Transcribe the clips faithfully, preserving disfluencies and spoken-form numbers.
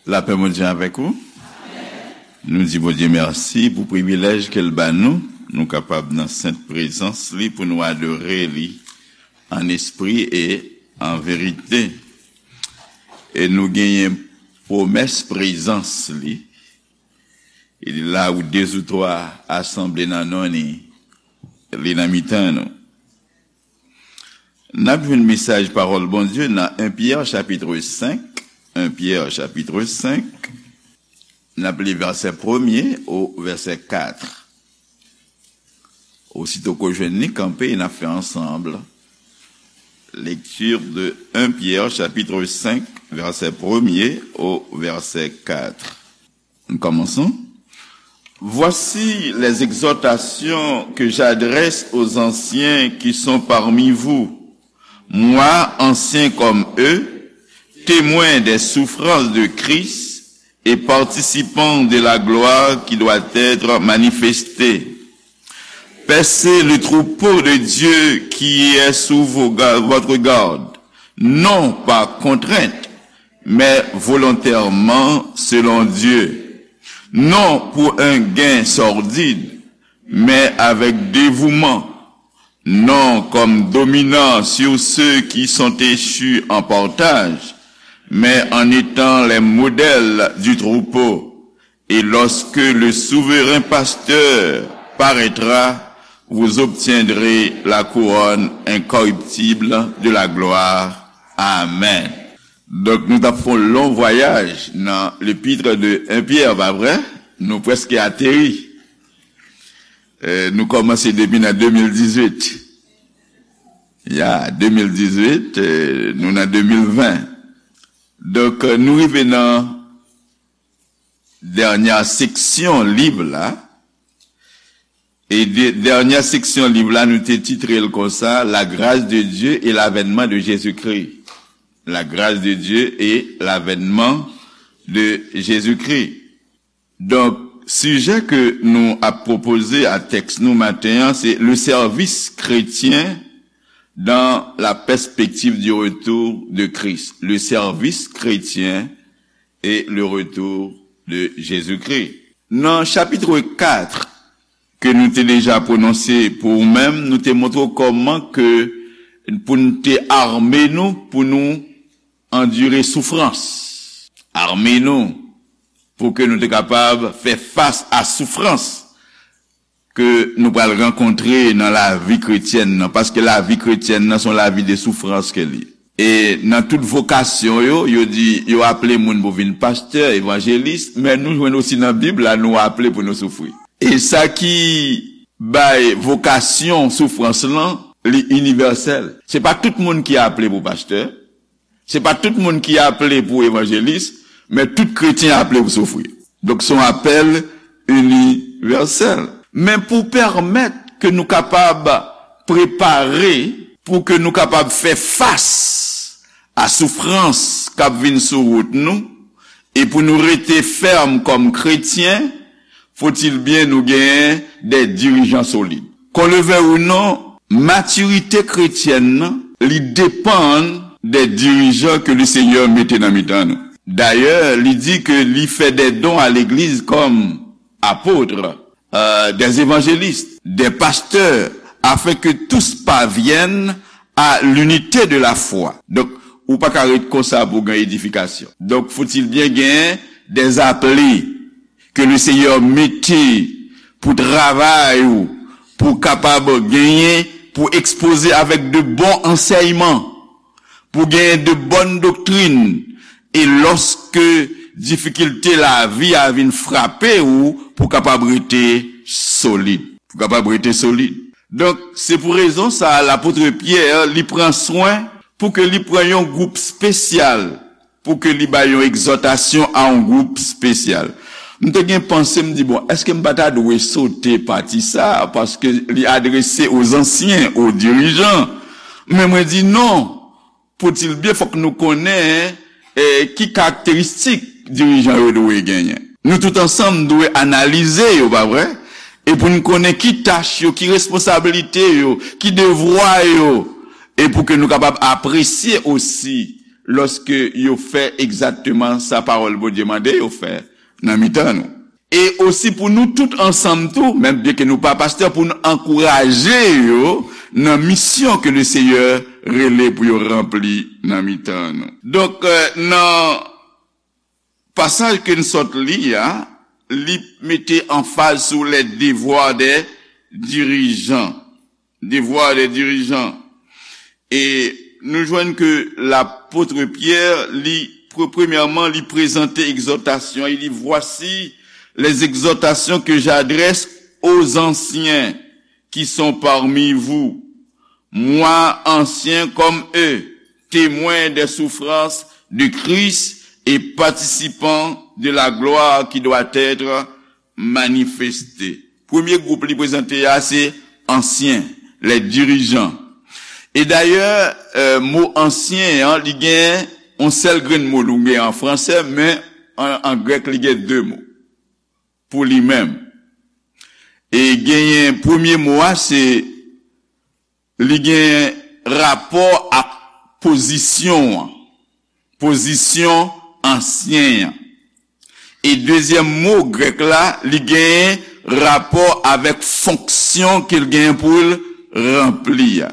Lapè Bondye avèk ou. Nou di Bondye mèsi pou privilèj ke l ba nou, nou kapab nan sent prezans li pou nou adore li an espri e an verite. E nou genyen pwomès prezans li. E la ou de ou twa asanble nan non li, li nan mitan nou. N ap jwenn mesaj pawòl Bondye nan en Pyè chapit senk, en Pyè chapit senk, n ap li vèsè premye o vèsè kat. Osito ke w jwenn li, kanpe, n ap fè ansanm. Lecture de un Pierre chapitre cinq, verset premier au verset quatre. Nous commençons. Voici les exhortations que j'adresse aux anciens qui sont parmi vous, moi, ancien comme eux, témoin des souffrances de Christ et participant de la gloire qui doit être manifestée. Paissez le troupeau de Dieu qui est sous vos ga- votre garde, non par contrainte, mais volontairement selon Dieu, non pour un gain sordide, mais avec dévouement, non comme dominant sur ceux qui sont échus en partage, mais en étant les modèles du troupeau. Et lorsque le souverain pasteur paraîtra, vous obtiendrez la couronne incorruptible de la gloire. Amen. Donk, nou t ap fè yon lon vwayaj nan lepitre de en Pyè, pa vre? Nou prèske ateri. Eh, nou kòmanse depi nan de mil dizuit. Ya, de mil dizuit, eh, nou nan de mil ven. Donk, eh, nou rive nan dènyè seksyon liv la. E de- dènyè seksyon liv la, nou te titre l konsa, La grâce de Dieu et l'avènement de Jésus-Christ. La grâce de Dieu et l'avènement de Jésus-Christ. Donk, sijè ke nou ap pwopoze a tèks nou maten an, se le service chrétien dans la perspective du retour de Christ. Le service chrétien et le retour de Jésus-Christ. Nan chapit kat ke nou te deja pwononse pou ou menm, nou te montre w kòman ke pou n te ame nou, pou nou andire soufrans. Ame nou pou ke nou te kapab fè fas a soufrans ke nou pral rankontre nan lavi kretyèn nan, paske lavi kretyèn nan se yon lavi de soufrans ke li. E nan tout vokasyon yo, yo di, yo aple moun pou vin pastè, evanjelis, men nou jwenn osi nan Bib la, nou aple pou nou soufri. E sa ki bay vokasyon soufrans lan, li inivèsèl. Se pa tout moun ki aple pou pastè, se pa tout moun ki aple pou evanjelis, men tout kretyen aple pou soufri. Donk, se yon apèl inivèsèl. Men pou pèmèt ke nou kapab prepare, pou ke nou kapab fè fas a soufrans k ap vin sou wout nou, e pou nou rete fèm kòm kretyen, faut-il bien nou genyen de dirijan solid. Qu'on le veuille ou non, matirite kretyèn nan, li depann de dirijan ke le Senyè mete nan mitan nou. Dayè, li di ke li fè de don a legliz kòm apot, euh, des évangélistes, des pasteurs, afin que tous parviennent à l'unité de la foi. Donk, ou pa ka ret konsa pou gen edifikasyon. Donk, faut-il bien gen des appelés ke le Senyè mete pou travay ou, pou kapab genyen, pou ekspoze avèk de bon ansèyman, pou genyen de bòn doktrin, e lòske difikilte lavi a vin frape ou, pou kapab rete solid. Pou kapab rete solid. Donk, se pou rezon sa a, lapot Pyè, li pran swen pou ke li pran yon gwoup espesyal, pou ke li bay yon egzòtasyon a yon gwoup espesyal. M te gen panse, m di, bon, èske m pa ta dwe sote pati sa a, paske li adrese aux anciens, aux dirigeants. Men mwen di non, faut-il bien, fòk nou konnen, eh, ki karakteristik dirijan yo dwe genyen. Nou tout ansanm dwe analize yo, pa vre? E pou n konnen ki tach yo, ki responsablite yo, ki devwa yo, e pou ke nou kapab apresye osi lòske yo fè egzakteman sa pawòl Bondye mande yo fè nan mitan nou. E osi pou nou tout ansanm tou, menm byenke nou pa pastè, pou n ankouraje yo nan misyon ke Lesenyè rele pou yo ranpli nan mitan nou. Donk, nan pasaj ke n sot li a, li mete anfaz sou les devoirs des dirigeants. Devoirs des dirigeants. E nou jwenn ke lapot Pyè, li, pre- premyèman, li prezante egzòtasyon, li di, voici les exhortations que j'adresse aux anciens qui sont parmi vous, moi ancien comme eux, témoin des souffrances de Christ et participant de la gloire qui doit être manifestée. Premye gwoup li prezante a se ansyen, les dirigeants. E dayè, mo ansyen an, li gen yon sèl grenn mo, li gen an fransè, men an, an grèk, li gen de mo pou li menm. E genyen premye mo a, se li gen rapò ak pozisyon an, pozisyon ansyen an. E dezyèm mo grèk la, li gen rapò avèk fonksyon ke l gen pou l ranpli a.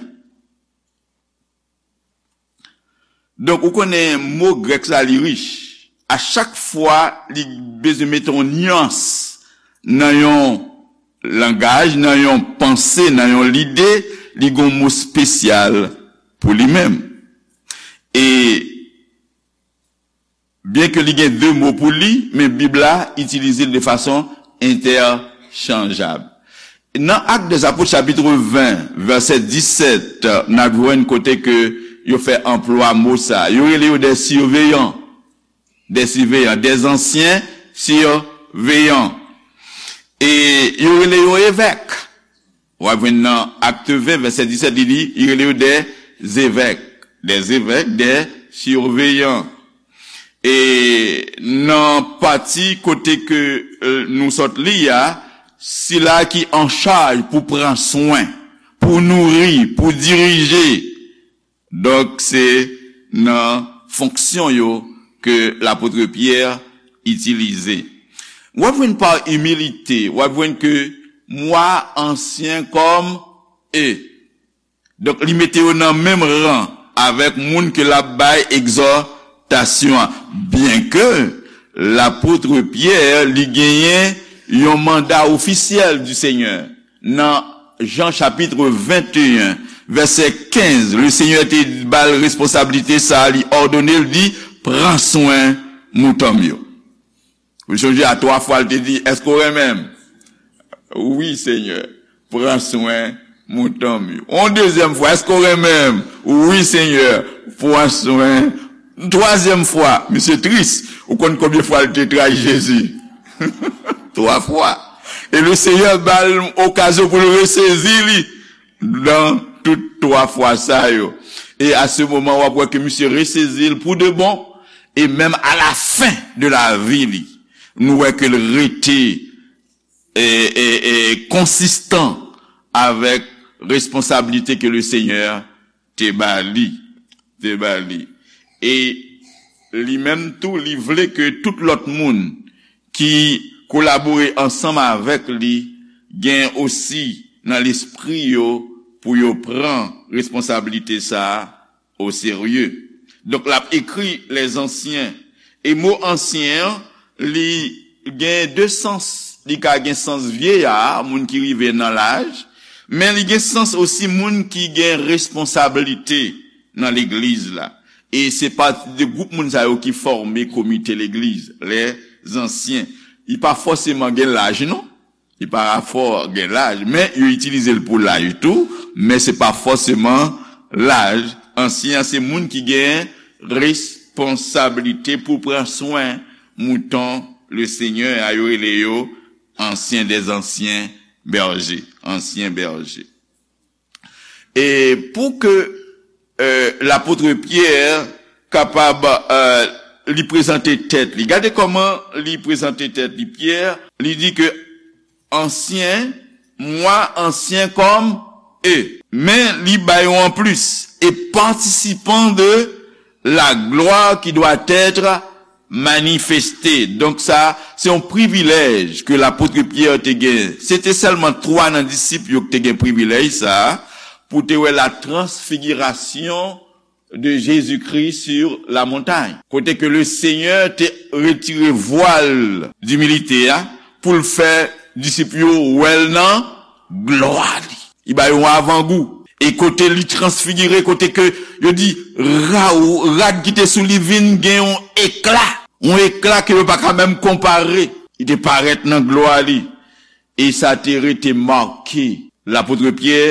Donk, ou konnen mo grèk sa, li rich. A chak fwa, li bezwen mete yon nyans nan yon langaj, nan yon panse, nan yon lide, li gen yon mo espesyal pou li menm. E byenke li gen de mo pou li, men Bib la itilize l de fason entèchanjab. Nan Actes des Apôtres, chapit ven, vèsè disèt, n ap jwenn kote ke yo fè anplwa mo sa. Yo rele yo des surveillants. Des surveillants, des anciens surveillants. E yo rele yo evèk. W ap jwenn nan Actes ven, vèsè disèt, li di, li rele yo des évêques. Des évêques, des surveillants. E nan pati kote ke, euh, nou sot li a, sila ki an chaj pou pran swen, pou nouri, pou dirije. Donk, se nan fonksyon yo ke lapot Pyè itilize. W ap jwenn pa imilite, w ap jwenn ke moi ancien comme eux. Donk, li mete yo nan menm ran avèk moun ke l ap bay egzòtasyon an. Byenke lapot Pyè, li genyen yon manda ofisyèl du Seigneur. Nan Jan chapit venteyen, vèsè kenz, Lesenyè te ba l responsablite sa a, li òdone l, di, pran swen mouton m yo. Ou sonje a twa fwa l te di, èske w renmen m? Wi, Senyè, pran swen mouton m yo. Yon dezyèm fwa, èske w renmen m? Wi, Senyè, pran swen. Twazyèm fwa, misye tris. Ou konn konbyen fwa l te trayi Jezi? Twa fwa. E Lesenyè ba l okazyon pou l resezi li nan tout twa fwa sa yo. E a se moman, w ap wè ke misye resezi l pou de bon. E menm a la fen de lavi li, nou wè ke l rete e, e, e konsistan avèk responsablite ke Lesenyè te ba li, te ba li. E li menm tou, li vle ke tout lòt moun ki kolabore ansanm avèk li gen osi nan lespri yo pou yo pran responsablite sa a oserye. Donk, l ap ekri les anciens. E mo ansyen an, li gen de sans. Li ka gen sans vyeya, moun ki rive nan laj, men li gen sans osi moun ki gen responsablite nan legliz la. E se pati de gwoup moun sa yo ki fòme komite legliz, les anciens. Li pa fòseman gen laj, non. Li pa fò gen laj, men yo itilize l pou laj tou, men se pa fòseman laj. Ansyen an se moun ki gen responsablite pou pran swen mouton Lesenyè a, yo rele yo ancien des anciens bergers, ansyen bèje. E pou ke, euh, lapot Pyè kapab, euh, li prezante tèt li. Gade kòman li prezante tèt li, Pyè. Li di ke ancien, moi ancien comme eux. Men li bay yon anplis, et participant de la gloire qui doit être manifestée. Donk sa, se yon privilèj ke lapot Pyè te gen. Se te sèlman twa nan disip yo ki te gen privilèj sa a, pou te wè la transfigirasyon de Jésus-Christ sur la montagne. Kote ke le Seigneur te retire vwal dimilite a pou l fè disip yo wè l nan glwa li. Li ba yo yon avangou. E kote li transfigire, kote ke yo di ra-, rad ki te sou li vin gen yon ekla. Yon ekla ke yo pa ka menm konpare. Li te parèt nan glwa li. E sa te rete make lapot Pyè.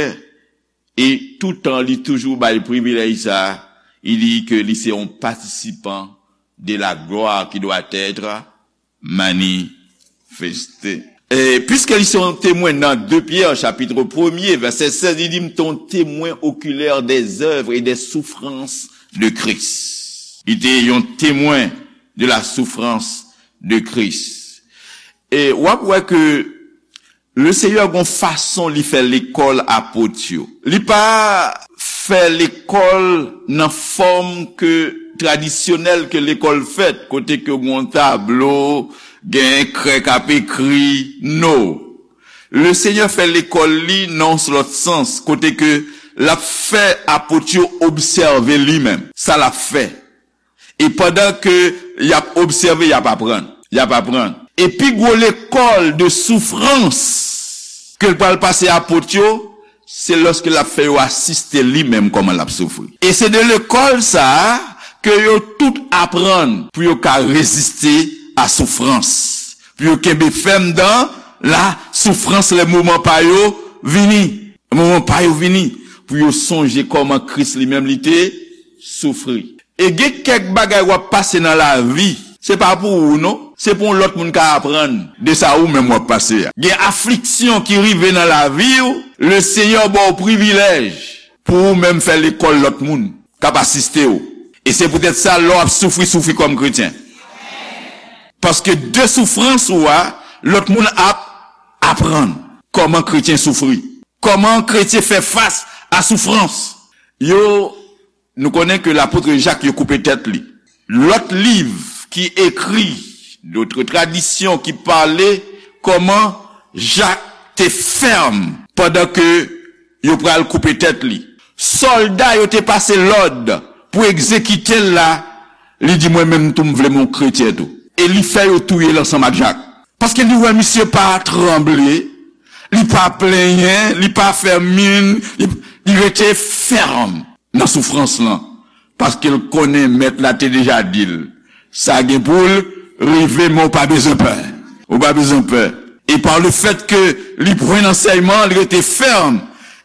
E toutan li toujou bay privilèj sa, li di ke li se yon patisipan de la gloire qui doit être manifestée. E piske li se yon temwen nan de Pyè, chapit premye, vèsè sèz, li di, "M te yon temwen oculaire des œuvres et des souffrances de Christ." Li te yon temwen de la souffrance de Christ. E w ap wè ke Le Seyè gon fason li fè lekòl apot yo. Li pa fè lekòl nan fòm ke tradisyonèl ke lekòl fèt, kote ke gon tablo, gen krè k ap ekri, no. Le Seyè fè lekòl li nan yon lòt sans, kote ke l ap fè apot yo obsève li menm. Sa l ap fè. E pandan ke y ap obsève, y ap aprann. Y ap aprann. E pi gwo lekòl de soufrans ke l pral pase apot yo, se lòske l ap fè yo asiste li menm kòman l ap soufri. E se de lekòl sa a ke yo tout aprann pou yo ka reziste a soufrans, pou yo kenbe fèm dan la soufrans lè moman pa yo vini. Moman pa yo vini pou yo sonje kòman Kris li menm li te soufri. E gen kèk bagay w ap pase nan lavi, se pa pou ou non, se pou yon lòt moun ka aprann de sa ou menm w ap pase a. Gen afliksyon ki rive nan lavi w, le Seyè ba w privilèj pou ou menm fè lekòl lòt moun k ap asiste w. E se poutèt sa, lè w ap soufri, soufri kòm kretyen. Paske de soufrans ou a, lòt moun ap aprann kòman kretyen soufri. Kòman kretyen fè fas a soufrans? Yo, nou konnen ke lapot Jak yo koupe tèt li. Lòt liv ki ekri, dòt tradisyon ki pale kòman Jak te fèm pandan ke yo pral koupe tèt li. Sòlda yo te pase lòd pou egzekite l la, li di, "Mwen menm tou, m vle m yon kretyen tou." E li fè yo touye l ansanm ak Jak. Paske li wè misye pa tranble, li pa plenyen, li pa fè min, li, li rete fèm nan soufrans lan. Paske l konnen mèt la te deja di l, sa gen pou l rive, men w pa bezwen pè. Ou pa bezwen pè. E pa le fèt ke li pran ansèyman, li rete fèm.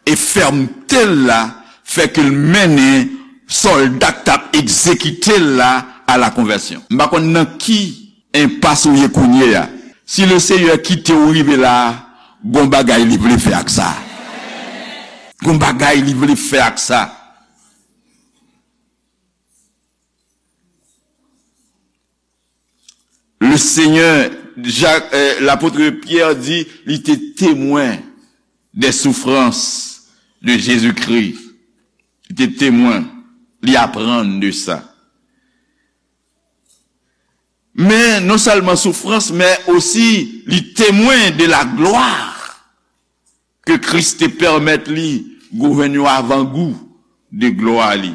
E fèmte l la fè ke l mennen sòlda k t ap egzekite l la a la konvèsyon. M pa konn nan ki enpas ou ye kounye a. Si le Seyè kite w rive la, gon bagay li vle fè ak sa. Gon bagay li vle fè ak sa. Le Seigneur, Jak, euh, lapot Pyè di, li te temwen des souffrances de Jésus-Christ. Li te temwen, li aprann de sa. Men non sèlman soufrans, men osi li temwen de la glwa ke Kris te pèmèt li jwenn yon avangou de glwa li.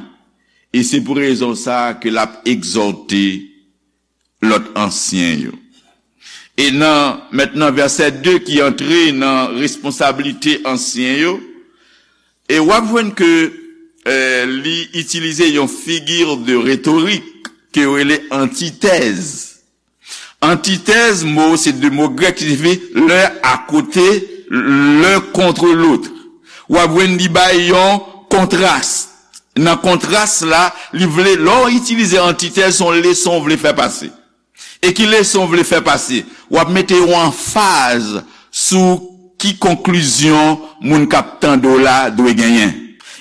E se pou rezon sa a ke l ap egzòte lòt ansyen yo. E nan, mentnan, vèsè de ki antre nan responsablite ansyen yo, e w ap jwenn ke, eh, li itilize yon figure de rhétorique ke yo rele antithèse. Antithèse, mo, se de mo grèk ki siyifi l'un à côté, l'un contre l'autre. W ap jwenn li bay yon kontras. Nan kontras la, li vle, lè w itilize antithèse, se yon leson w vle fè pase. E ki leson w vle fè pase? W ap mete yon anfaz sou ki konklizyon moun k ap tande w la dwe genyen.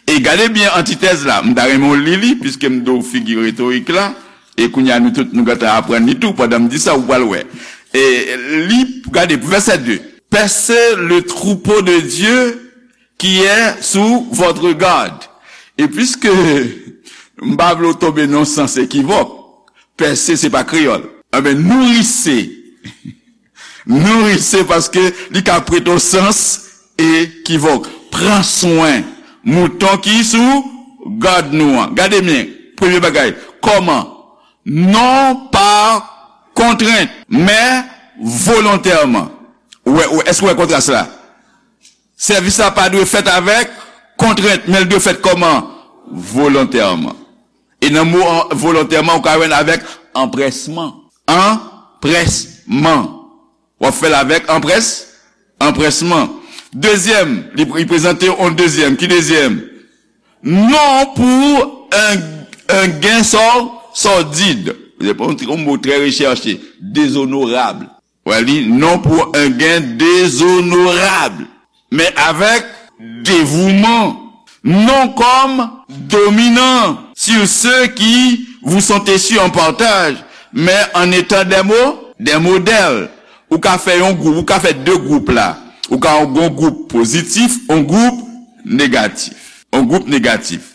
E gade byen antitèz la, m ta renmen w li li, piske m di w figi retorik la, e kounye a nou tout nou gentan aprann li tou, pandan m di sa, ou pral wè. E li, gade, vèsè de, Percez le troupeau de Dieu qui est sous votre garde. E piske M pa vle w tonbe nan sans ekivòk. Pèse se pa kreyòl. Enben, nourissez. Nourissez paske li ka prete w sans ekivòk. Pran swen mouton ki sou gad nou an. Gade byen. Premye bagay. Kòman? Non pa kontrent, men volontèman. Ou wè, ou, èske w wè kontras la? Sèvis la pa dwe fèt avèk kontrent, men l dwe fèt kòman? Volontèman. E nan mo an, volontèman, ou ka jwenn avèk anprèsman. Anprèsman. W ap fè l avèk anprès, anprèsman. Dezyèm, li, li prezante yon dezyèm. Ki dezyèm? Non pou un, un gain sor-, sordide. Se yon mo trè rechèche. Dezonorab. Wè li, non pour un gain déshonorable, mais avec dévouement, non comme dominant sur ceux qui vous sont échus en partage, mais en étant des mo-, des modèles. Ou ka fè yon gwoup, ou ka fè de gwoup la. Ou ka yon gwoup pozitif, yon gwoup negatif. Yon gwoup negatif.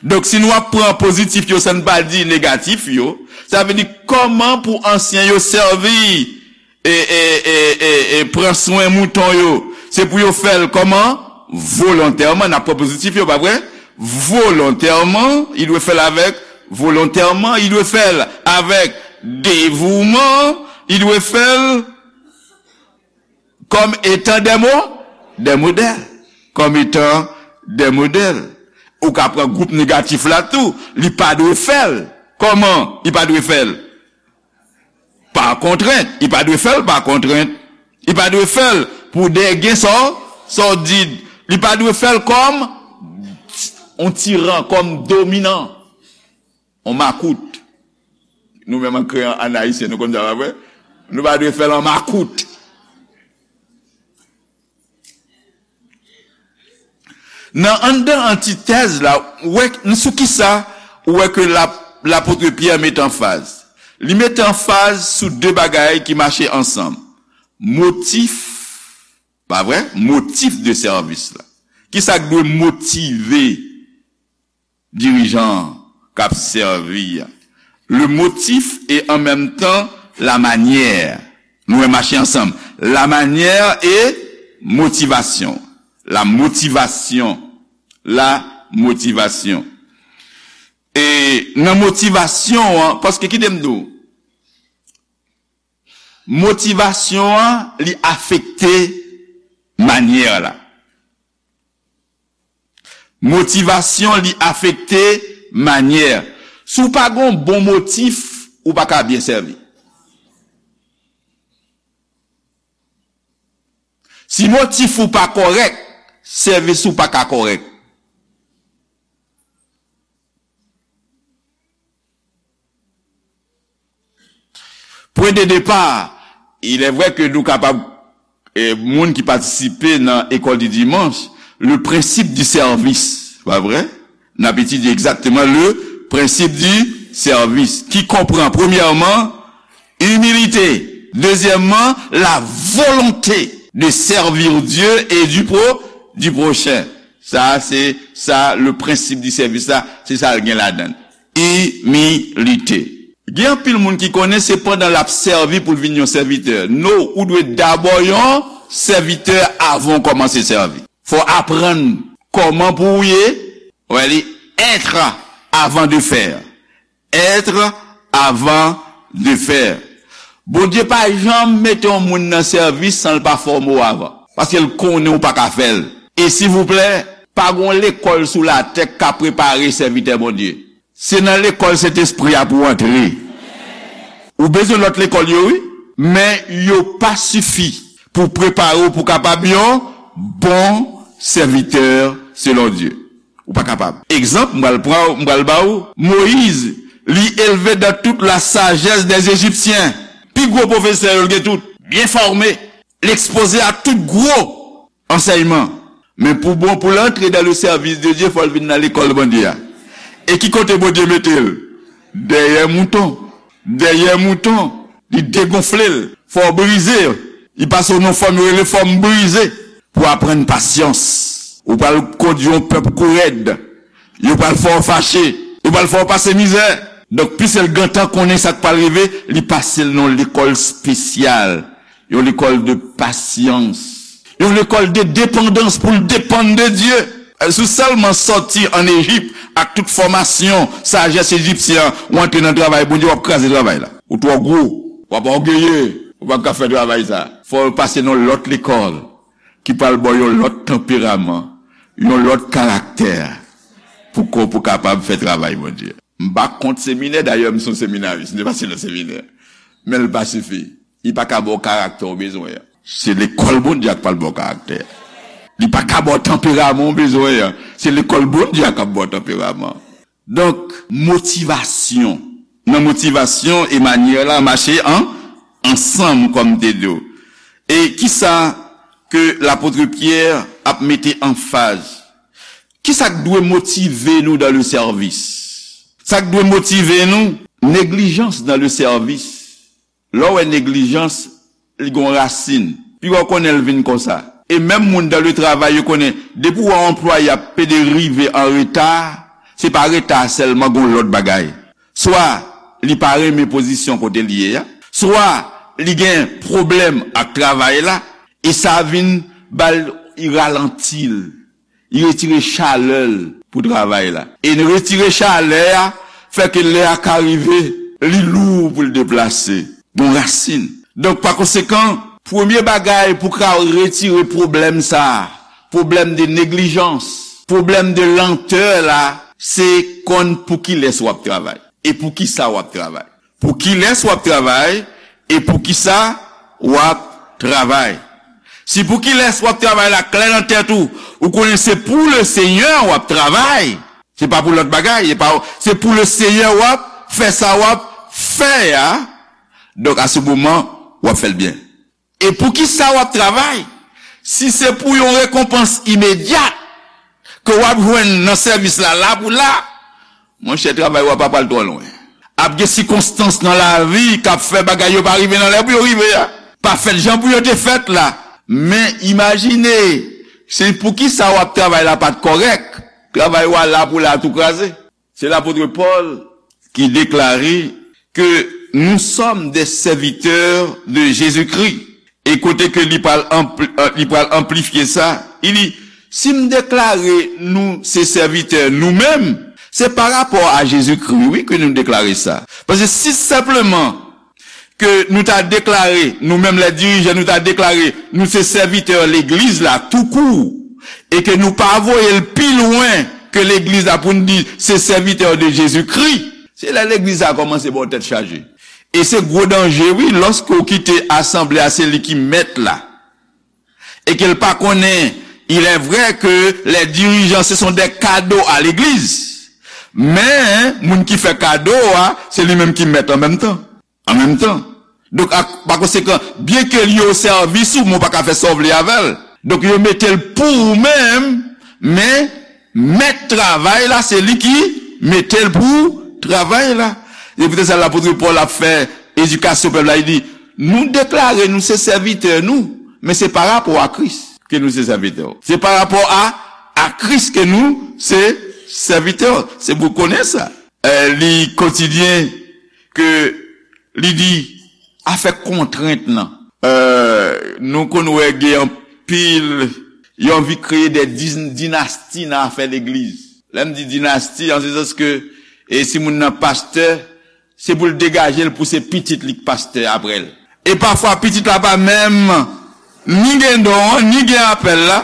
Donk, si nou ap pran pozitif yo san n pa di negatif yo, sa vle di kòman pou ansyen yo sèvi e, e, e, e, e pran swen mouton yo. Se pou yo fè l kòman? Volontèman. N ap pran pozitif yo, pa vre? Volontèman, li dwe fè l avèk, volontèman, li dwe fè l avèk devouman, li dwe fè l comme étant des mo-, des modèles. Comme étant des modèles. Ou ka pran gwoup negatif la tou, li pa dwe fè l. Kòman li pa dwe fè l? Pa kontrent. Li pa dwe fè l pa kontrent. Li pa dwe fè l pou de gain sor-, sordid. Li pa dwe fè l kòm yon tiran, kòm dominan. On makout. Nou menm an kreyon, an ayisyen, nou konn sa, pa vre? Nou pa dwe fè l an makout. Nan anndan antitèz la, ou wè, sou kisa ou wè ke lap-, lapot Pyè met anfaz? Li met anfaz sou de bagay ki mache ansanm. Motif, pa vre? Motif de sèvis la. Kisa k dwe motive dirijan an k ap sèvi a? Le motif et en même temps la manière. Nou wè mache ansanm. La manière et motivation. La motivation. La motivation. E nan motivasyon an, paske kite m di w, motivasyon an, li afekte manyè la. Motivasyon, li afekte manyè. Si w pa gen yon bon motif, ou pa ka byen sèvi. Si motif ou pa kòrèk, sèvis ou pa ka kòrèk. Pwen de depa, il est vrai que nou kapab, eh, moun ki patisipe nan école du dimanche, le principe du service, pa vre? N ap etidye egzakteman le principe du service, ki konprann, premyèman, humilité, dezyèmman, la volonté de servir Dieu et du pro-, du prochain. Sa, se sa, le principe du service la, se sa l gen ladan l. Imilite. Gen anpil moun ki konnen se pandan l ap sèvi pou l vin yon sèvitè. No, ou dwe dabò yon sèvitè avan w kòmanse sèvi. Fò w aprann kòman pou w ye. Wè li, être avant de faire. Être avant de faire. Bondye pa janm mete yon moun nan sèvis san l pa fòme w avan. Paske l konnen ou pa ka fè l. E silvouplè, pa gen yon lekòl sou latè k ka prepare sèvitè Bondye. Se nan lekòl Sentespri a pou w antre. Ou bezwen lòt lekòl yo, wi, men yo pa sifi pou prepare w pou kapab yon bon sèvitè selon Dye. Ou pa kapab. Egzanp, m pral pran, m pral ba w, Moyiz, li elve dans toute la sagesse des Égyptiens. Pi gwo pwofesè yo l gen tout, byen fòme, l ekspoze a tout gwo ansèyman. Men pou bon, pou l antre dans le service de Dieu, fò l vin nan lekòl Bondye a. E ki kote Bondye mete l? Dèyè mouton. Dèyè mouton. Li degonfle l. Fò w brize. Li pase w nan fòm yo rele fòm brize. Pou aprann pasyans. Ou pral kondui yon pèp kou rèd. Yo pral fè w fache. Yo pral fè w pase mizè. Donk, piske l gentan konnen sa k pral rive, li pase l nan yon lekòl espesyal, yon lekòl de pasyans, yon lekòl de depandans pou l depann de Dye. Si w sèlman sòti ann Ejip ak tout fòmasyon sajès ejipsyen an, w antre nan travay Bondye, w ap kraze travay la. Ou twò gwo, w ap ògeye, ou p ap ka fè travay sa. Fò w pase nan lòt lekòl ki pral ba w yon lòt tanperaman, yon lòt karaktè pou ko pou kapab fè travay Bondye. M pa kont seminè, dayè m se yon seminaris, m te pase nan seminè. Men l pa sifi. Li pa ka ba w karaktè w bezwen an. Se lekòl Bondye a k pral ba w karaktè. Li pa ka ba w tanperaman w bezwen an. Se lekòl Bondye a k ap ba w tanperaman. Donk, motivasyon. Nan motivasyon e manyè la mache an, ansanm, kòm m te di w. E kisa ke lapot Pyè ap mete anfaz? Kisa k dwe motive nou dans le service? Sa k dwe motive nou? Neglijans dans le service. Lè w wè neglijans, li gon rasin. Piga w konnen l vin konsa. E menm moun dans le travail, yo konnen, depi w wè yon anplwaye ap pede rive an reta, se pa reta sèlman, gon lòt bagay. Swa li pa renmen pozisyon kote l ye a, swa li gen pwoblèm ak travay la, e sa vin ba l, li ralanti l. Li retire chalè l pou travay la. E retire chalè a fè ke lè a ka rive, li lou pou l deplase. Gon rasin. Donk, pa konsekan, premye bagay pou ka retire pwoblèm sa a, pwoblèm de neglijans, pwoblèm de lantè la, se konn pou kilès w ap travay e pou kisa w ap travay. Pou kilès w ap travay e pou kisa w ap travay. Si pou kilès w ap travay la klè nan tèt ou, ou konnen se pou le Senyè w ap travay, se pa pou lòt bagay, se pa, se pou le Senyè w ap fè sa w ap fè a, donk, a se moman, w ap fè l byen. E pou kisa w ap travay? Si se pou yon rekonpans imedyat ke w ap jwenn nan sèvis la, la pou la, monchè, travay w ap pa pral twò lwen. Ap gen sikonstans nan lavi k ap fè bagay yo pa rive nan lè pou yo rive a. Pa fèt jan pou yo te fèt la. Men imajine, se pou kisa w ap travay la pa t kòrèk. Travay w a la pou la tou kraze. Se lapot Pòl ki deklare ke nous sommes des serviteurs de Jésus-Christ. E kote ke li pral anpli-, euh, li pral anplifye sa, li di, si m deklare nou se sèvitè nou menm, se pa rapò a Jezikri, wi, ke nou deklare sa. Paske si senpleman ke nou ta deklare, nou menm lè dirijan, nou ta deklare nou se sèvitè legliz la toukou, e ke nou pa voye l pi lwen ke legliz la pou n di se sèvitè de Jezikri, se lè legliz la kòmanse ba w tèt chaje. E se gwo danje, wi, lòske w kite asanble a se li ki mèt la. E ke l pa konnen, il est vrai que les dirigeants, ce sont des cadeaux à l'église. Men, moun ki fè kado a, se li menm ki mèt an menm tan. An menm tan. Donk, ak, pa konsekan, byen ke li o sèvis ou, men w pa ka fè sa w vle avè l. Donk, yo mete l pou ou menm, men mèt travay la, se li ki mete l pou travay la. Se poutèt sa lapot Pòl ap fè edikasyon pèp la, li di, nou deklare nou se sèvitè nou, men se pa rapò a Kris ke nou se sèvitè. Se pa rapò a, a Kris ke nou se sèvitè. Se pou konnen sa. Eh, li kontinye ke li di, afè kontrent lan. Eh, nou konn wè gen anpil, yo anvi kreye de din-, dinasti nan afè legliz. Lè m di dinasti, an se sans ke, e si moun nan pastè, se pou l degaje l pou se pitit li k pastè apre l. E pafwa pitit la pa menm ni gen don an, ni gen apèl la.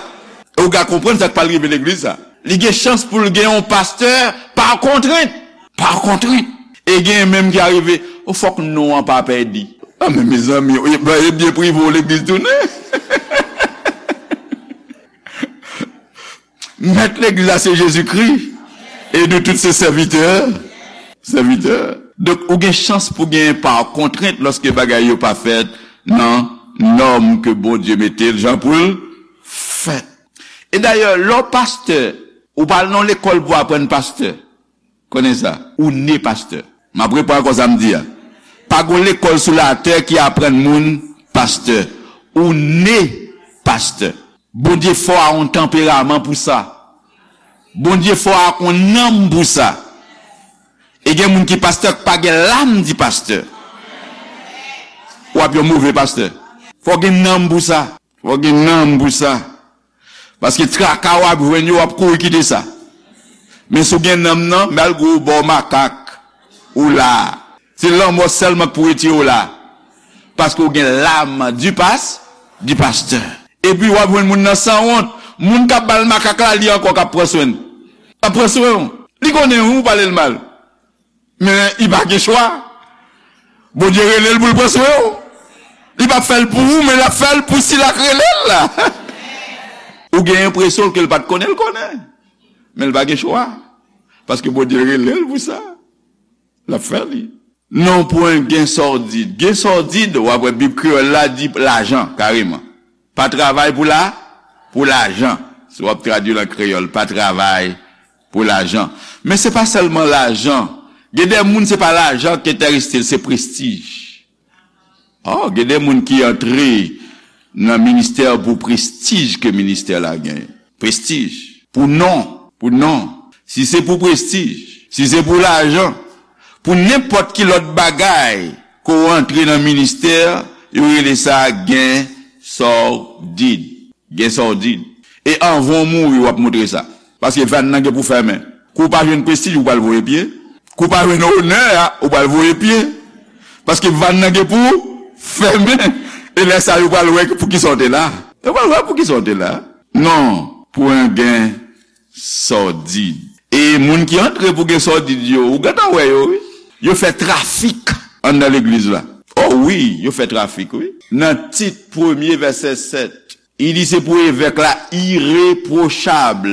E w ka konprann sa k pral rive legliz sa. Li gen chans pou l gen yon pastè pa kontrent. Pa kontrent. E gen menm ki arive, o fòk non an pa pèdi. A men mezanmi, e, e byen prive w legliz tounen. Mèt legliz la se Jezikri. E nou tout se sèvitè. Sèvitè. Donk, ou gen chans pou gen pa kontrent lòske bagay yo pa fèt nan nòm ke Bondye mete l jan pou l fèt. E dayè, lè w pastè, ou pa al nan lekòl pou aprann pastè. Konnen sa, ou ne pastè. M ap reprann ankò sa m di a. Pa gon lekòl sou latè ki aprann moun pastè. Ou ne pastè. Bondye fè w a yon tanperaman pou sa. Bondye fè w a yon nanm pou sa. E gen moun ki pastè k pa gen lam di pastè. W ap yon move pastè. Fò w gen nanm pou sa. Fò w gen nanm pou sa. Paske traka w ap jwenn yo, w ap kouri kite sa. Men si w gen nanm nan, malgre w bò makak, ou la. Se lanmò sèlman k pou retire w la. Paske w gen lam di pas, di pastè. Epi w ap jwenn moun nan sanwont. Moun k ap ba l makak la, li ankò k ap pran swen l. L ap pran swen w. Li konnen wi, ou pale l mal. Men li pa gen chwa. Bondye rele l pou l pran swen w. Li p ap fè l pou ou, men l ap fè l pou sila k rele l la. Ou gen enpresyon ke l pa t konnen, l konnen. Men l pa gen chwa. Paske Bondye rele l pou sa. L ap fè li. Non pwen gen sòdid. Gen sòdid, w ap wè Bib kreyòl la di lajan, kareman. Pa travay pou la, pou lajan. Si w ap tradui l an kreyòl, pa travay pou lajan. Men se pa sèlman lajan. Gen de moun, se pa lajan ki enterese l, se prestij. Oh, gen de moun ki antre nan ministè pou prestij ke ministè la genyen. Prestij. Pou non. Pou non. Si se pou prestij, si se pou lajan, pou nenpòt ki lòt bagay ke w antre nan ministè, yo rele sa gen sòdid. Gen sòdid. E anvan w mouri, w ap montre sa. Paske vàn nan gen pou fèmen. Kou w pa jwenn prestij, ou pral voye pye. Kou w pa jwenn onè a, ou pral voye pye. Paske vàn nan gen pou fèmen. E lè sa, yo pral wè pou kisa w te la. Yo pral wè pou kisa w te la. Non, pou yon gen sòdid. E moun ki antre pou gen sòdid yo, ou gentan wè yo, wi. Yo fè trafik anndan legliz la. Oh wi, yo fè trafik, wi. Nan Tit premye vèsè sèt, li di se pou evèk la irepwochab,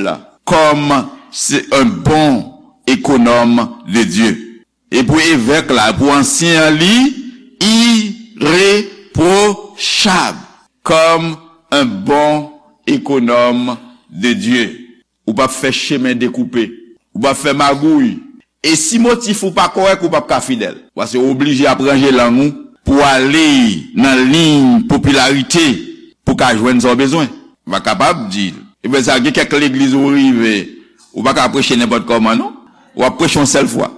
comme c'est un bon économe de Dieu. E pou evèk la, pou ansyen an, li irepwochab, comme un bon économe de Dieu. Ou p ap fè chemen dekoupe. Ou p ap fè magouy. E si motif ou pa kòrèk, ou p ap ka fidèl. Paske ou oblije ap ranje lang ou pou w ale nan liy popilarite pou w ka jwenn sa w bezwen. Ou pa kapab di, ebyen sa, gen kèk legliz ou rive, ou pa ka preche nenpòt kòman, non. W ap preche yon sèl fwa.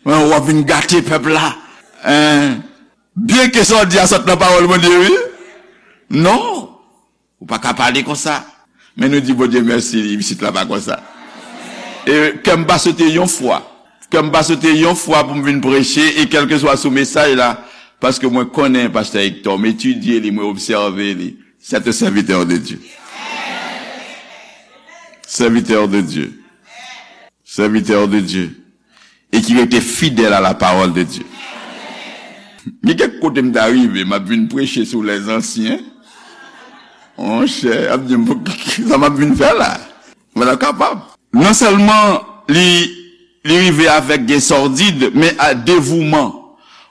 Men w ap vin gate pèp la. Hein? Byenke sa w di a sot nan pawòl Bondye, wi. Non. Ou pa ka pale konsa. Men nou di Bondye mèsi, pitit la pa konsa. E kè m pa sote yon fwa. Kè m pa sote yon fwa pou m vin preche, e kèlkeswa sou mesaj la, paske mwen konnen pastè Hector, m etidye li, mwen obsève li. C'est un serviteur de Dieu. Serviteur de Dieu. Serviteur de Dieu. E ki rete fidèl à la parole de Dieu. Gen kèk kote m ta rive, m ap vin preche sou lèzansyen. Monchè, ap di m, sa m ap vin fè la? Mwen pa kapab. Non sèlman li, li rive avèk gen sòdid, men a devouman.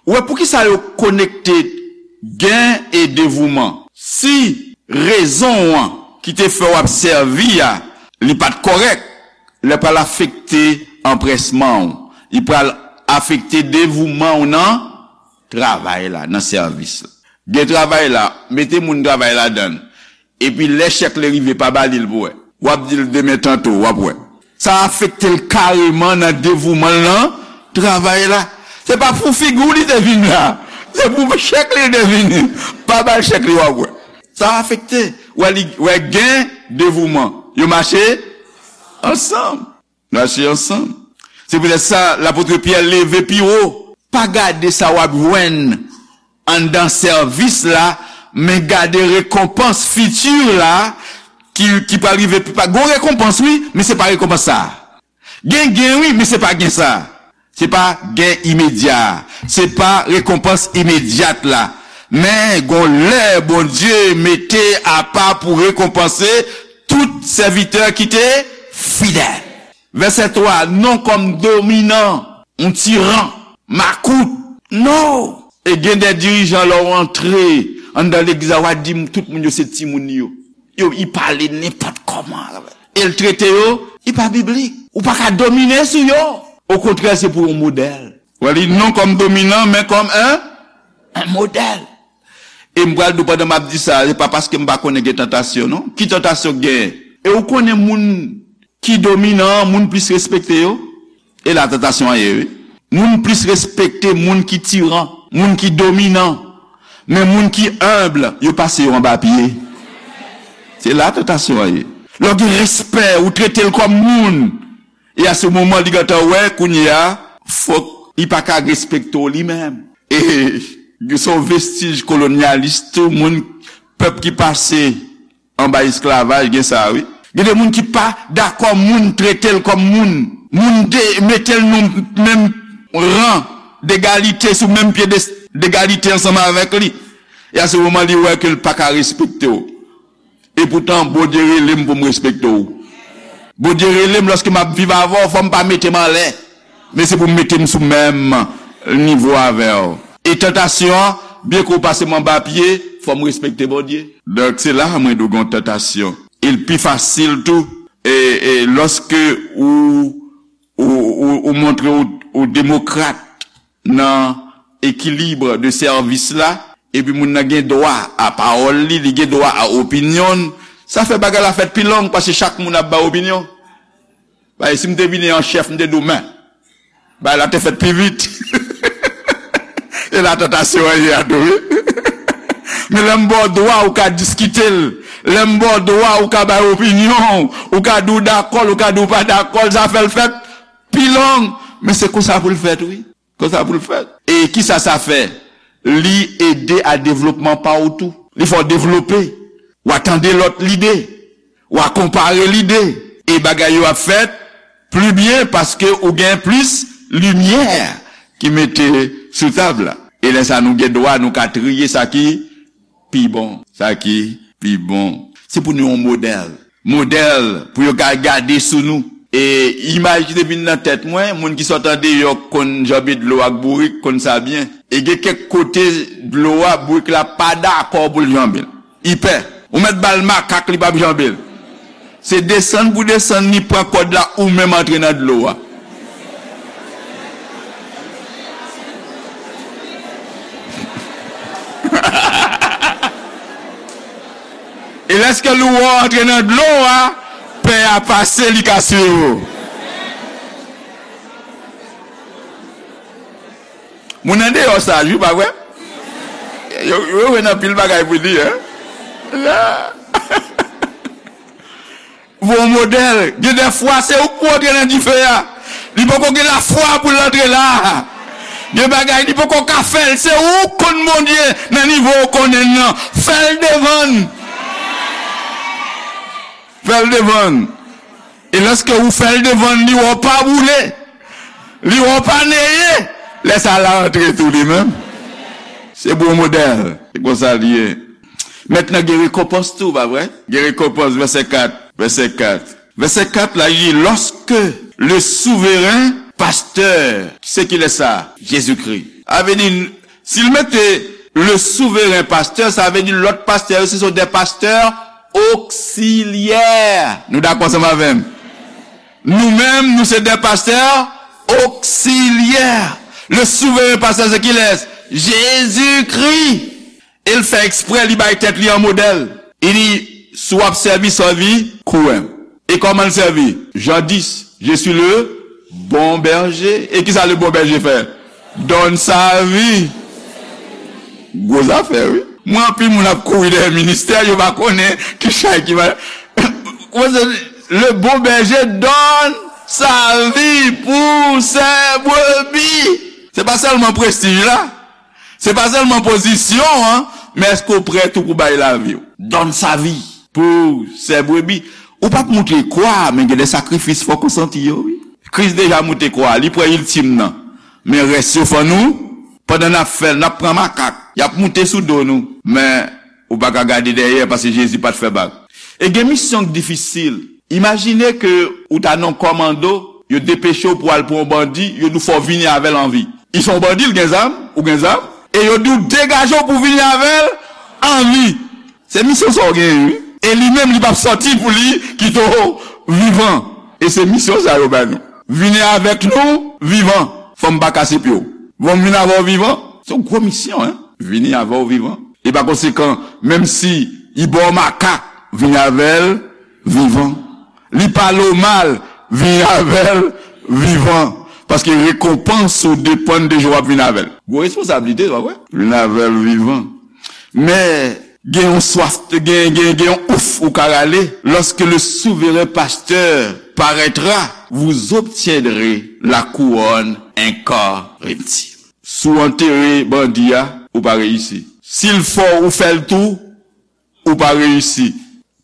Ou wè, poukisa yo konekte gen e devouman? Si rezon an ki te fè w ap sèvi a, li pa t kòrèk, lè pral afekte anprèsman w, li pral afekte devouman w nan travay la, nan sèvis la. Gen travay la, mete moun travay ladan l. Epi lè chèk li rive, pa ba li l pou wè. W ap di l demen tanto, w ap wè. Sa afekte l kareman nan devouman l nan travay la. Se pa pou figi w li te vin la. Se pou chèk li li te vini. Pa ba l chèk li, w ap wè. Sa afekte. Wè li, wè gen devouman. Yo mache ansanm. Nou achte ansanm. Se poutèt sa, lapot Pyè leve pi wo. Pa gade sa w ap jwenn anndan sèvis la, men gade rekonpans fiti la ki, ki pral rive pi ta. Gon rekonpans, wi, men se pa rekonpans sa a. Gen gen, wi, men se pa gen sa a. Se pa gen imedya a. Se pa rekonpans imedyat la. Men gon lè Bondye mete apa pou rekonpanse tout sèvitè ki te fidèl. Vèsè twa, non kòm dominan, yon tiran, makout. Non! E gen de dirijan, lè w antre anndan legliz la, w a di tout moun yo se timoun li yo. Yo, li pale nenpòt kòman. E l trete yo, li pa biblik. Ou pa ka domine sou yo. Okontrè, se pou yon modèl. Wè li, non kòm dominan, men kòm un, un modèl. E m pral di w pandan m ap di sa, se pa paske m pa konnen gen tantasyon, non. Ki tantasyon k genyen? E ou konnen moun ki dominan an, moun plis respekte yo? E la tantasyon an ye, wi. Moun plis respekte moun ki tiran, moun ki dominan. Men moun ki enb, yo pase yo anba pye. Se la tantasyon an ye. Lè w gen respè, ou trete l kòm moun. E a se moman li gentan wè, kounye a, fòk li pa ka respekte w li menm. E se yon vestij kolonyalis tou, moun, pèp ki pase anba esklavaj, gen sa, wi. Gen de moun ki pa dakò moun trete l kòm moun. Moun de, mete l nan menm ran degalite, sou menm pye de, degalite ansanm avèk li. E a se moman li wè ke l pa ka respekte w. E poutan, Bondye rele m pou m respekte w. Bondye rele m lòske m ap viv avè w, fò m pa mete m anlè. Men se pou m mete m sou menm nivo avè w. E tantasyon an, byen ke w pase m anba pye, fò m respekte Bondye. Donk, se la mwen di w gen yon tantasyon. E l pi fasil tou, e, e lòske ou, ou, ou, ou montre ou, ou demokrat nan ekilib de sèvis la, epi moun nan gen dwa a pawòl li, li gen dwa a opinyon l, sa fè bagay la fèt pi long, paske chak moun ap bay opinyon. Bay, si m te vini an chèf, m te di w, men, bay la te fèt pi vit. E la tantasyon an ye a tou, wi. Men lè m ba w dwa, ou ka diskite l. Lè m ba w dwa, ou ka bay opinyon w. Ou ka di w dakò l, ou ka di w pa dakò l. Sa fè l fèt pi long. Men se konsa pou l fèt, wi. Konsa pou l fèt. E kisa sa fè? Li ede a devlopman pa w tou. Li fè w devlope. W a tande lòt lide. W a konpare lide. E bagay yo ap fèt pli byen paske ou gen plis limyè ki mete sou tab la. E lè sa nou gen dwa, nou ka triye sa ki pi bon. Sa ki pi bon. Se pou nou yon modèl. Modèl pou yo ka gade sou nou. E imaj ki te vin nan tèt mwen, moun ki sot andeyò konn janbe dlo ak bourik, konn sa byen. E gen kèk kote dlo a, bourik la pa dakò pou l janbe l. Li pè. Ou mèt ba l makak, li p ap janbe l. Se desann pou desann, li pran kòd la, ou menm antre nan dlo a. E lèske lou wè w antre nan dlo a, pè a pase, li ka swiv ou. Moun andeyò saj, wi, pa vre? Yo, yo, yo wè nan pil bagay pou di, hein? La. Bon modèl. Gen de fwa, se ou k pou antre nan dife a. Li poko gen lafwa pou l antre la. Gen bagay, li poko ka fè l. Se ou k konn Bondye nan nivo ou konnen l nan. Fè l devan l. Fè l devan l. E lèske ou fè l devan l, li wè w pa boule. Li wè w pa neye. Lè sa l a antre tou li menm. Se bon modèl. Se konsa l ye. Mentnan gen rekonpans tou, pa vre? Gen rekonpans, vèsè kat, vèsè kat. Vèsè kat la, li di, lorsque le souverain pasteur, se kilès sa? Jezikri. A vle di, si l mete le souverain pasteur, sa vle di lòt pastè yo, se sont des pasteurs auxiliaires. Nou dakò ansanm avè m? Nou menm, nou se des pasteurs auxiliaires. Le souverain pasteur, se kilès? Jezikri. E l fè eksprè, li bay tèt li an modèl. Li di, si w ap sèvi, sèvi kou m. E kòman l sèvi? Jan dis, je suis le bon berger. E kisa le bon berger fè? Donn sa vi. Gwo zafè, wi. Mwen, anpil moun ap kouri dèyè ministè, yo pa konnen ki chay ki va. Le bon berger donne sa vie pour ses brebis. Se pa sèlman prestij la. Se pa sèlman pozisyon an, men èske w prè tou pou bay lavi w? Donn sa vi pou sè brebi. Ou p ap moute kwa, men gen de sakrifis fòk ou santi yo, wi. Kris deja moute kwa, li prè iltim nan. Men rès yo fò nou, pandan n ap fè l, n ap pran makak. Y ap moute sou do nou. Men ou pa ka gade dèyè, paske Jezi pa t fè bak. E gen misyon k difisil. Imajine ke ou ta nan kòmando, yo depeche w pou al pran yon bandi, yo di w fò w vini avè l an vi. Li se yon bandi, l gen zam, ou gen zam, e yo di w degaje w pou w vini avè l an vi. Se misyon sa w genyen, wi. E li menm, li p ap sòti pou li kite w vivan. E se misyon sa yo ba nou. Vini avèk nou vivan. Fò m pa kase pye w. Fò m vin avè w vivan. Se yon gwo misyon, en. Vini avè w vivan. E pa konsekan, menm si li ba w makak, vini avè l vivan. Li pale w mal, vini avè l vivan. Paske rekonpans ou depann de jan w ap vin avè l. Gwo responsablite, pa vre? Vin avè l vivan. Men, gen yon swaf, gen, gen, gen yon ouf ou ka rale. Lorsque le souverain pasteur paraîtra, vous obtiendrez la couronne incorruptible. Si w antere bandi a, ou pa reyisi. Si l fò w, ou fè l tou, ou pa reyisi.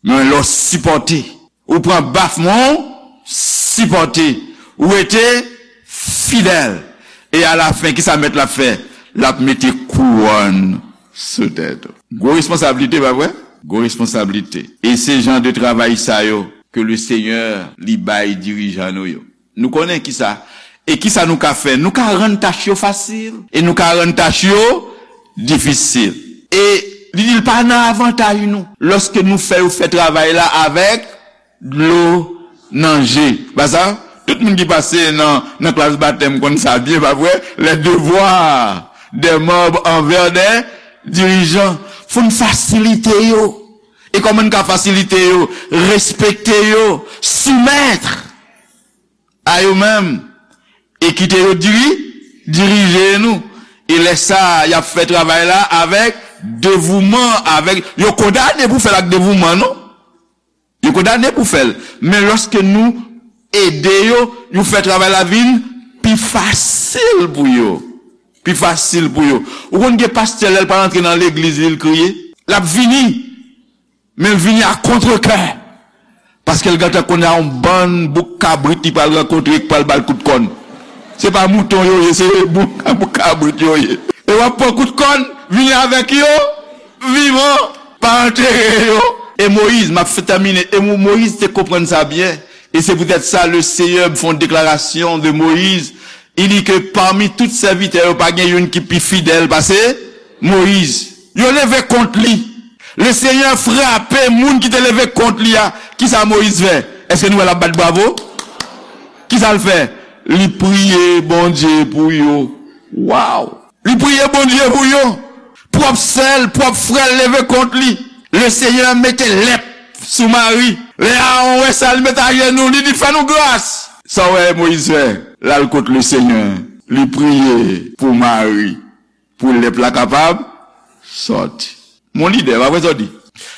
Men lè w sipòte, ou pran baf, men w sipòte, ou rete fidèl. E alafen, kisa mèt la ap fè? L ap mete kouwòn sou tèt ou. Gwo responsablite, pa vre? Gwo responsablite. E se jan de travay sa yo ke le Senyè li bay dirijan nou yo. Nou konnen kisa. E kisa nou ka fè? Nou ka rann tach yo fasil. E nou ka rann tach yo difisil. E li di l pa nan avantaj nou. Lòske nou fè yo fè travay la avèk dlo nan je. Pa sa? Tout moun ki pase nan, nan klas batèm konn sa byen, pa vre? Les devoirs des membres envers des dirigeants. Fò n fasilite yo. E kòman n ka fasilite yo? Respekte yo, soumèt a yo menm, e kite yo diri-, dirije nou. E lè sa, y ap fè travay la avèk devouman, avèk, yo kondane pou fè l ak devouman, non? Yo kondane pou fè l. Men lòske nou ede yo, nou fè travay la vin pi fasil pou yo. Pi fasil pou yo. Ou konn gen pastè, lè l pral antre nan legliz li, l kriye. L ap vini. Men l vini a kontrekè. Paske l gentan konnen a yon bann bouk kabrit li pral rankontre ki pral ba l kout kòn. Se pa mouton yo ye, se bouk, bouk kabrit yo ye. E w ap pran kout kòn, vini avèk yo, vivan, pa antere yo. E Moyiz, m ap fin tèmine, e Mo-, Moyiz te konprann sa byen. E se poutèt sa, le Seyè fè yon deklarasyon de Moyiz. Li di ke pami tout sèvitè yo, pa gen youn ki pi fidèl pase Moyiz. Yo leve kont li. Le Senyè frape moun ki te leve kont li a. Kisa Moyiz fè? Èske nou wè l ap bat bravo? Kisa l fè? Li priye Bondye pou yo. Waw! Li priye Bondye pou yo. Pwòp sè l, pwòp frè l leve kont li. Le Senyè mete lèp sou Mari. Lè Aawon wè sa, li met ajenou, li di, "Fè nou gras." Sa w wè Moyiz fè? L al kot le Senyè. Li priye pou Mari, pou lèp la kapab sòti. Mon lidè, pa vre sa w di?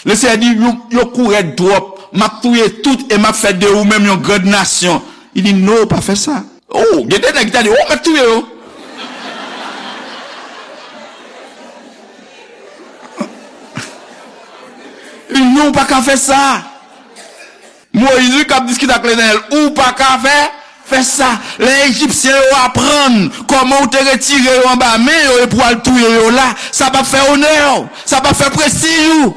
Le Senyè di, "Yo, yo kourèd twòp. M ap touye tout e m ap fè de ou menm yon grand nasyon." Li di, "Non, pa fè sa." Oh, gen de nèg ki ta di, "Oh, m ap touye yo." Li di, "Non, ou pa ka fè sa." Moyiz, wi, k ap diskite ak Letènèl, "Ou pa ka fè, fè sa." Lè Ejipsyen yo aprann kòman ou te retire yo anba men yo epi w al touye yo la, sa p ap fè onè w, sa p ap fè prestij ou.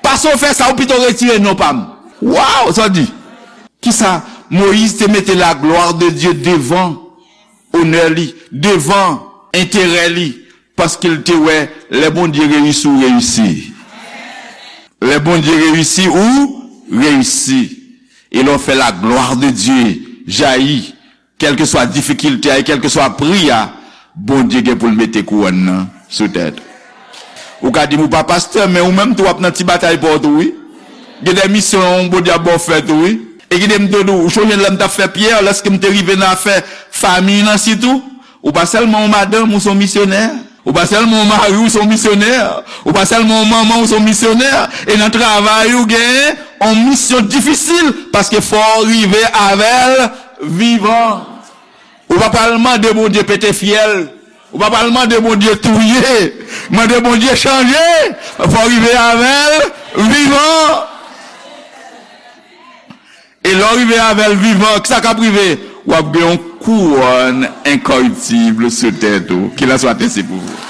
Pase w fè sa, ou pito retire non pa m. Waw, sa w di? Kisa? Moyiz te mete la gloire de Dieu devan onè li, devan enterè li, paske l te wè lè Bondye reyisi, ou reyisi. Lè Bondye reyisi, ou reyisi. E lè w fè la gloire de Dieu jayi, kèlkeswa difikilte a, e kèlkeswa pri a, Bondye gen pou l mete kouwòn nan sou tèt ou. Ou ka di m ou pa pastè, men ou menm tou w ap nan ti batay pa w tou, wi. Gen de misyon Bondye ap ba w fè tou, wi. E kite m te di w, ou sonje lè m t ap fè Pyè, lèske m te rive nan afè fanmi nan sitou? Ou pa sèlman yon madanm, ou se yon misyonè. Ou pa sèlman yon mari, ou se yon misyonè. Ou pa sèlman yon manman, ou se yon misyonè. E nan travay ou genyen yon misyon difisil, paske fò w rive avè l vivan. Ou pa pral mande Bondye pete fyèl. Ou pa pral mande Bondye touye. Mande Bondye chanje. Fò w rive avè l vivan. E lè w rive avè l vivan, kisa k ap rive? W ap gen yon kouwòn enkoriptib sou tèt ou. Qu'il en soit ainsi pour vous.